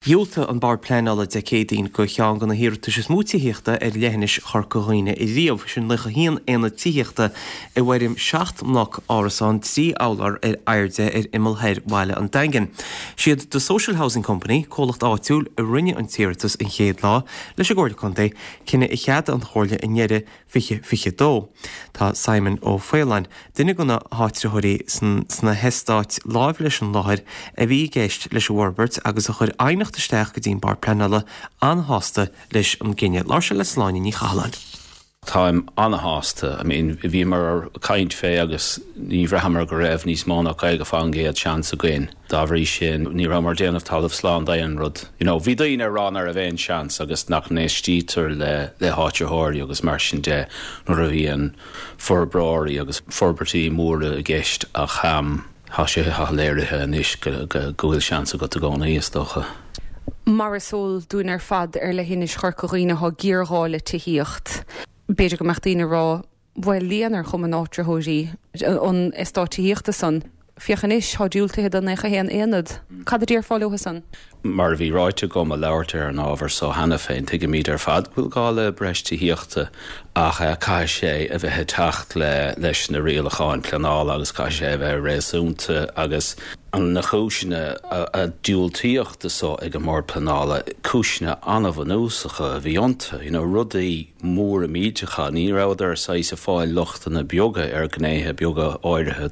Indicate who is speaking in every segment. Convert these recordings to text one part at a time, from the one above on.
Speaker 1: Dhiúltaigh an Bord Pleanála Dé Céadaoin do cheann de na hiarratais is mó tithíochta ar leithinis Chorca Dhuibhne riamh, sin 91 aonad tithíochta i bhfoirm 7 mbloc árasán 3 urlár ar airde ar imeall thoir bhaile an Daingin. Siad The Social Housing Company, comhlacht áitiúil, a rinne an t-iarratas an chéad lá leis an gComhairle Contae, cinneadh a cheadaigh an Chomhairle i ndeireadh 2022. Tá Simon Ó Faoláin, duine de na háitritheoirí sna heastáit láimh leis an láthair a bhí i gceist leis an bhforbairt agus a chuir aighneacht isteach go dtí an Bord Pleanála, an-shásta leis an gcinneadh. Labhair sé le Sláine Ní Chathalláin.
Speaker 2: Táim an-shásta. I mean, bhíomar ag caint fé agus ní bhraitheamar go raibh níos mó ná 50% seans againn. Dá bhrí sin, ní rabhamar ag déanamh talamh slán d'aon rud. You know, bhí daoine ag rá nach raibh aon seans agus nach n-éistítear le le háitritheoirí agus mar sin de nuair a bhíonn forbróirí agus forbairtí móra i gceist ach tá sé tá léirithe anois go go go bhfuil seans agat i gcónaí, is dócha.
Speaker 3: Mar is eol dúinn ar fad ar leithinis Chorca Dhuibhne tá géarghá le tithíocht. B'fhéidir go mbeadh daoine ag rá Bhuel, líon ar chumann áitritheoirí an eastáit tithíochta san. Féach anois, tá diúltaithe do 91 aonad. Cad a déarfá leo san?
Speaker 2: Mar a bhí ráite agam ag labhairt ar an ábhar so cheana féin, tuigimid ar fad go bhfuil gá le breis tithíochta ach caithfidh sé a bheith ag teacht le leis na rialacháin pleanála agus caithfidh sé a bheith réasúnta agus na cúiseanna a diúltaíodh do so ag an mBord Pleanála, cúiseanna an-bhunúsacha a bhí iontu, you know, rudaí. móra millteacha. Ní rabhadar saghas ag fáil lochtanna beaga ar ghnéithe beaga áirithe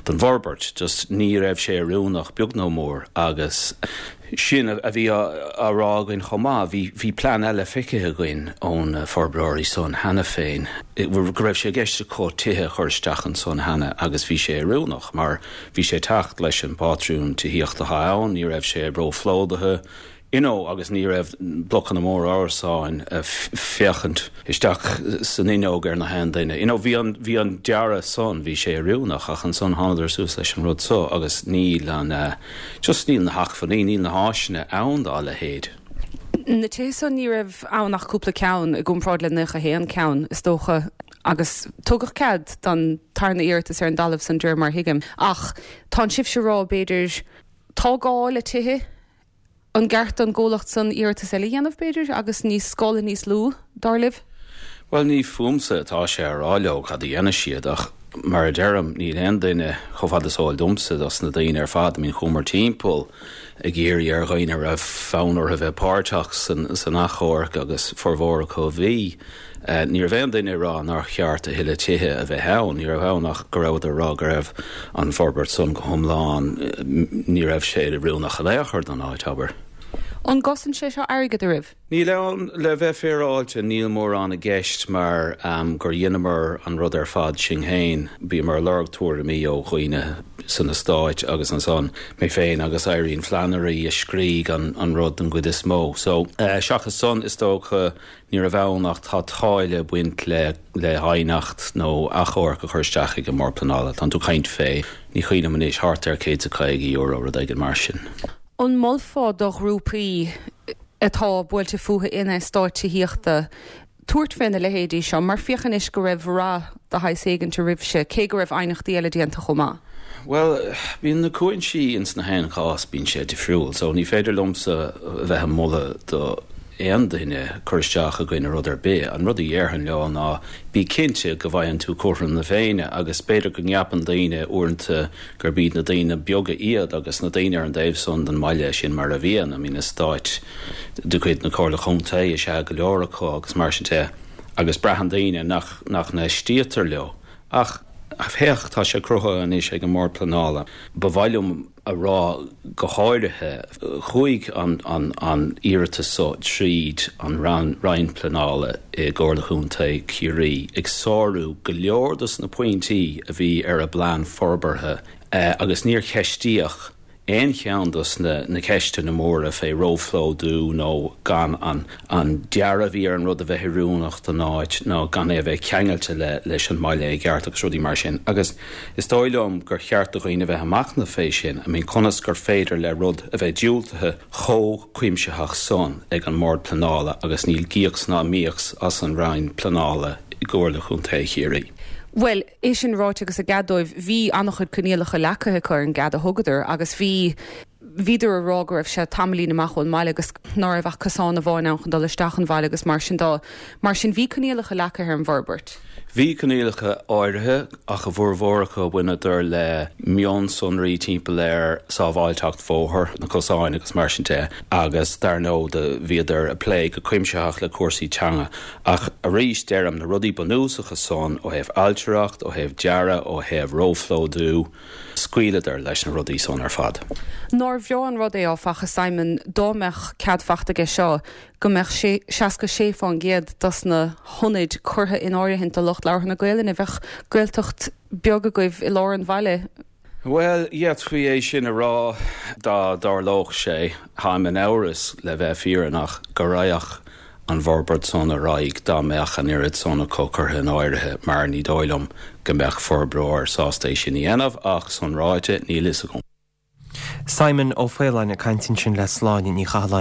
Speaker 2: den bhforbairt. Just ní raibh sé oiriúnach beag nó mór agus sin a bhí á rá againn chomh maith. Bhí bhí plean eile feicthe againn ó na forbróirí san cheana féin go raibh sé i gceist acu tithe a chur isteach ansan cheana agus bhí sé oiriúnach mar bhí sé ag teacht leis an bpátrún tithíochta atá ann, ní raibh sé róphlódaithe, you know agus ní raibh blocanna móra árasáin ag féachaint isteach san fhuinneog ar na haon duine. You know bhí an, bhí an dearadh san, bhí sé oiriúnach ach ansan thánadar suas leis an rud so agus níl an eh, just níl na hacmhainní, níl na háiseanna ann dá leithéid.
Speaker 3: Na tithe san ní raibh ann ach cúpla ceann i gcomparáid le 91 ceann is dócha agus tugadh cead don tarna iarratas ar an dtalamh san de réir mar a thuigim. Ach tánn sibhse ag rá b'fhéidir tá gá le tithe An gceart don gcomhlacht san iarratas eile a dhéanamh, b'fhéidir, agus níos scála níos lú, dar libh?
Speaker 2: Bhuel, ní fúmsa atá sé a rá leo cad a dhéanfaidh siad, ach mar a deirim, níl aon duine, chomh fada is eol domsa, dos na daoine ar fad, I mean, chuamar timpeall ag iarraidh ar dhaoine a raibh fonn orthu bheith páirteach san achomharc agus formhór acu a bhí. Ní raibh aon duine ag rá nár cheart a thuilleadh tithe a bheith ann, ní raibh ann ach go rabhadar ag rá go raibh an forbairt san go hiomlán, ní raibh sé oiriúnach in aon chor don áit, abair.
Speaker 3: An gcosain sé seo airgead oraibh?
Speaker 2: Níl ann, le bheith féaráilte, níl mórán i gceist mar gur dheineamar an rud ar fad sinn féin. Bhíomar ag lorg tuairimí ó dhaoine san eastáit agus ansan mé féin agus Irene Flannery a scrígh an rud den gcuid is mó. So, seachas san, is dócha, Ní raibh ann ach tá táille ag baint le le haighneacht nó achomharc a chur isteach ag an mBord Pleanála. Tánn tú ag caint fé, ní cuimhin liom anois, thart ar €150, rud éigin mar sin.
Speaker 3: An molfá do ghrúpaí atá buailte fúthu in eastáit tithíochta tabhairt fé na leithéidí seo mar féach anois go raibh rath de shaghas éigint oraibhse, cé go raibh aighneachtaí eile déanta chomh maith?
Speaker 2: Bhuel, bíonn na cúinsí ins na haon chás, bíonn sé difriúil. So ní féidir liomsa a bheith ag moladh do aon duine cur isteach i gcoinne rud ar bith. An rud a dhéarfainn leo ná bí cinnte go bhfaigheann tú cothrom na Féinne agus b'fhéidir go gceapann daoine uaireanta gurb iad na daoine beaga iad agus na daoine ar an dtaobh san den mbaile, sin mar a bhíonn, I mean eastáit de chuid na Comhairle Contae is ea go leor acu agus mar sin de agus braitheann daoine nach nach n-éistítear leo. Ach féach, tá sé cruthaithe anois ag an mBord Pleanála. Ba mhaith liom a rá go háirithe, chuaigh an iarratas so tríd an Roinn Pleanála i gComhairle Chontae Chiarraí, ag sárú go leor dos na pointí a bhí ar a bplean forbartha agus níor ceistíodh aon cheann dos na ceisteanna móra fé róphlódú nó gan an dearadh a bhí ar an rud a bheith oiriúnach don áit nó gan é a bheith ceangailte leis an mbaile i gceart agus rudaí mar sin. Agus is dóigh liom gur cheart do dhaoine a bheith ag machnamh fé sin, I mean conas gur féidir le rud a bheith diúltaithe chomh cuimsitheach san ag an mBord Pleanála agus níl gíocs ná míocs as an Roinn Pleanála i gComhairle Chontae Chiarraí.
Speaker 3: Bhuel, é sin ráite agus a gcead dóibh, bhí an-chuid coinníollacha leagtha acu ar an gcead a thugadar agus bhí. Bhíodar a rá go raibh sé tamaillín amach ón mbaile agus ná raibh ach cosán amháin ann chun dul isteach an bhaile agus mar sin dó. Mar sin bhí coinníollacha leagtha ar an bhforbairt.
Speaker 2: Bhí coinníollacha áirithe ach a bhformhór acu bhaineadar le mionsonraí timpeall ar sábháilteacht bhóthair, na cosáin agus mar sin de agus dar ndóigh do bhíodar ag plé go cuimsitheach le cúrsaí teanga. Ach arís deirim, na rudaí bunúsacha san ó thaobh ailtireacht, ó thaobh dearadh, ó thaobh róphlódú, scaoileadar leis na rudaí san ar fad.
Speaker 3: Nár bhreá an rud é, áfach, a Simon, dá mbeadh cead fachta aige seo, go mbeadh 66% dos na hionaid curtha in áirithint do lucht labhartha na Gaelainne. Bheadh Gaeltacht beag agaibh i lár an bhaile.
Speaker 2: Bhuel, d'fhéadfaí é sin a rá dá dtarlódh sé. Táim in amhras, le bheith fírinneach, go raghadh an bhforbairt san ar aghaidh dá mbeadh an oiread san acu curtha in áirithe mar ní dóigh liom go mbeadh forbróir sásta é sin a dhéanamh ach, san ráite, níl fhios agam.
Speaker 1: Simon Ó Faoláin ag caint ansin le Sláine Ní Chathalláin.